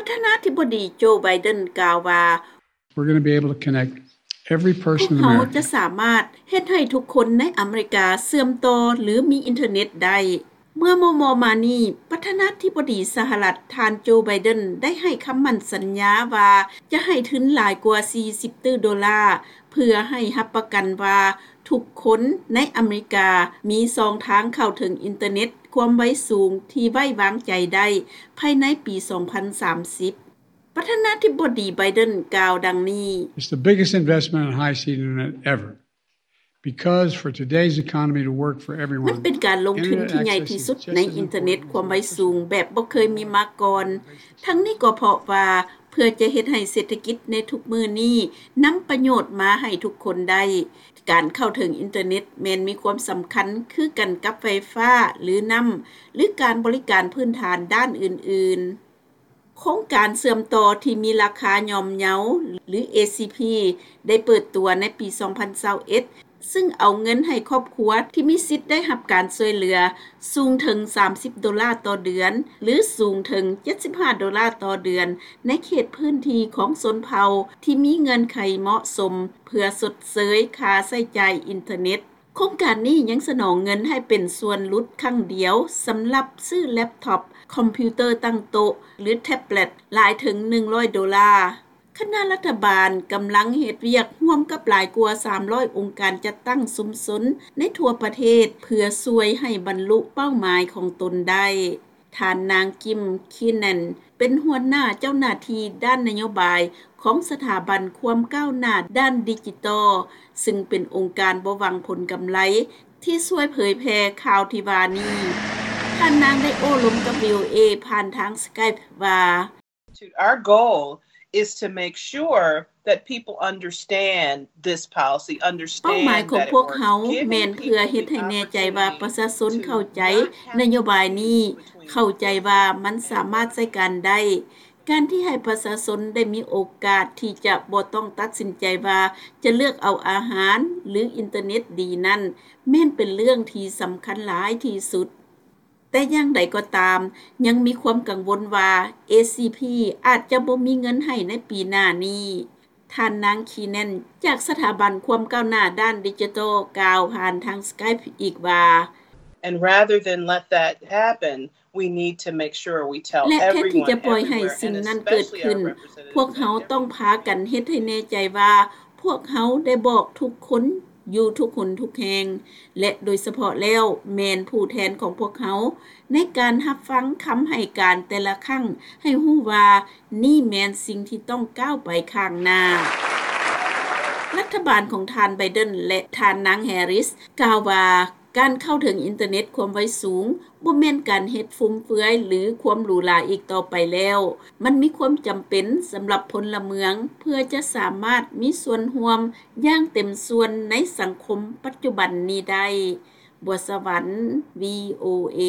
ປະທານາທິບໍດີ ໂຈ ໄບເດັນ ກ່າວວ່າ We're going to be able to connect every person in America. ພວກເຮົາຈະສາມາດເຮັດໃຫ້ທຸກຄົນໃນອາເມລິກາເຊື່ອມຕໍ່ ຫຼື ມີອິນເຕີເນັດໄດ້. ເມື່ອມໍ່ໆມານີ້, ປະທານາທິບໍດີສະຫະລັດ ທ່ານ ໂຈ ໄບເດັນ ໄດ້ໃຫ້ຄຳໝັ້ນສັນຍາວ່າ ຈະໃຫ້ທຶນຫຼາຍກວ່າສີ່ສິບຕື້ໂດລາ ເພື່ອໃຫ້ຮັບປະກັນວ່າທຸກຄົນໃນອາເມລິກາມີຊ່ອງທາງເຂົ້າເຖິງອິນເຕີເນັດຄວາມໄວສູງທີ່ໄວ້ວາງໃຈໄດ້ ພາຍໃນປີສອງພັນສາມສິບ. ປະທານາທິບໍດີ ໄບເດັນ ກ່າວດັ່ງນີ້. It's the biggest investment in high-speed internet ever. Because for today's economy to work for everyone, ມັນເປັນການລົງທຶນທີ່ໃຫຍ່ທີ່ສຸດໃນອິນເຕີເນັດຄວາມໄວສູງແບບບໍ່ເຄີຍມີມາກ່ອນ. ທັງນີ້ກໍເພາະວ່າເພື່ອຈະເຮັດໃຫ້ເສດຖະກິດໃນທຸກມື້ນີ້ນຳປະໂຫຍດມາໃຫ້ທຸກຄົນໄດ້, ການເຂົ້າເຖິງອິນເຕີເນັດແມ່ນມີຄວາມສຳຄັນຄືກັນກັບໄຟຟ້າ ຫຼື ນ້ຳ ຫຼື ການບໍລິການພື້ນຖານດ້ານອື່ນໆ. ໂຄງການເຊື່ອມຕໍ່ທີ່ມີລາຄາຍ່ອມເຍົາ ຫຼື ເອຊີພີ ໄດ້ເປີດຕົວໃນປີສອງພັນຊາວເອັດ ຊຶ່ງເອົາເງິນໃຫ້ຄອບຄົວທີ່ມີສິດໄດ້ຮັບການຊ່ວຍເຫຼືອສູງເຖິງສາມສິບໂດລາຕໍ່ເດືອນ ຫຼື ສູງເຖິງເຈັດສິບຫ້າໂດລາຕໍ່ເດືອນ ໃນເຂດພື້ນທີ່ຂອງຊົນເຜົ່າທີ່ມີເງື່ອນໄຂເໝາະສົມ ເພື່ອຊົດເຊີຍຄ່າໃຊ້ຈ່າຍອິນເຕີເນັດ. ໂຄງການນີ້ຍັງສະໜອງເງິນໃຫ້ເປັນສ່ວນຫຼຸດຄັ້ງດຽວສຳລັບຊື້ແລັບທັອບ, ຄອມພິວເຕີຕັ້ງໂຕະ ຫຼື ແທັບເລັດ ຫຼາຍເຖິງໜຶ່ງຮ້ອຍໂດລາ. ຄະນະລັດຖະບານກຳລັງເຮັດວຽກຮ່ວມກັບຫຼາຍກວ່າສາມຮ້ອຍອົງການຈັດຕັ້ງຊຸມຊົນໃນທົ່ວປະເທດ ເພື່ອຊ່ວຍໃຫ້ບັນລຸເປົ້າໝາຍຂອງຕົນໄດ້. ທ່ານນາງ ກິມ ຄີແນນ ເປັນຫົວໜ້າເຈົ້າໜ້າທີ່ດ້ານນະໂຍບາຍຂອງສະຖາບັນຄວາມກ້າວໜ້າດ້ານດິຈິຕອລ ຊຶ່ງເປັນອົງການບໍ່ຫວັງຜົນກຳໄລທີ່ຊ່ວຍເຜີຍແຜ່ຂ່າວທີ່ວ່ານີ້. ທ່ານນາງໄດ້ໂອ້ລົມກັບ ວີໂອເອ ຜ່ານທາງ Skype ວ່າ Our goal is to make sure that people understand this policy, understand that it works, ເປົ້າໝາຍຂອງພວກເຮົາແມ່ນເພື່ອເຮັດໃຫ້ແນ່ໃຈວ່າປະຊາຊົນເຂົ້າໃຈນະໂຍບາຍນີ້, ເຂົ້າໃຈວ່າມັນສາມາດໃຊ້ການໄດ້. ການທີ່ໃຫ້ປະຊາຊົນໄດ້ມີໂອກາດທີ່ຈະບໍ່ຕ້ອງຕັດສິນໃຈວ່າຈະເລືອກເອົາອາຫານ ຫຼື ອິນເຕີເນັດດີນັ້ນ ແມ່ນເປັນເລື່ອງທີ່ສຳຄັນຫຼາຍທີ່ສຸດ. ແຕ່ຢ່າງໃດກໍຕາມ, ຍັງມີຄວາມກັງວົນວ່າ ເອຊີພີ ອາດຈະບໍ່ມີເງິນໃຫ້ໃນປີໜ້ານີ້. ທ່ານນາງ ຄີແນນ ຈາກສະຖາບັນຄວາມກ້າວໜ້າດ້ານດິຈິຕອລ ກ່າວຜ່ານທາງ Skype ອີກວ່າ And rather than let that happen, we need to make sure we tell everyone everywhere, and especially our representatives in every ແລະ ແທນທີ່ຈະປ່ອຍໃຫ້ສິ່ງນັ້ນເກີດຂຶ້ນ, ພວກເຮົາຕ້ອງພາກັນເຮັດໃຫ້ແນ່ໃຈວ່າ ພວກເຮົາໄດ້ບອກທຸກຄົນຢູ່ທຸກຫົນທຸກແຫ່ງ ແລະ ໂດຍສະເພາະແລ້ວແມ່ນຜູ້ແທນຂອງພວກເຮົາ ໃນການຮັບຟັງຄຳໃຫ້ການແຕ່ລະຄັ້ງ ໃຫ້ຮູ້ວ່ານີ້ແມ່ນສິ່ງທີ່ຕ້ອງກ້າວໄປຂ້າງໜ້າ. ລັດຖະບານຂອງທ່ານ ໄບເດັນ ແລະ ທ່ານນາງ ແຮຣິສ ກ່າວວ່າ ການເຂົ້າເຖິງອິນເຕີເນັດຄວາມໄວສູງ ບໍ່ແມ່ນການເຮັດຟຸມເຟືອຍ ຫຼື ຄວາມຫຼູຫຼາອີກຕໍ່ໄປແລ້ວ. ມັນມີຄວາມຈຳເປັນສຳລັບພົນລະເມືອງ ເພື່ອຈະສາມາດມີສ່ວນຮ່ວມຢ່າງເຕັມສ່ວນໃນສັງຄົມປັດຈຸບັນນີ້ໄດ້. ບົວສະຫວັນ ວີໂອເອ.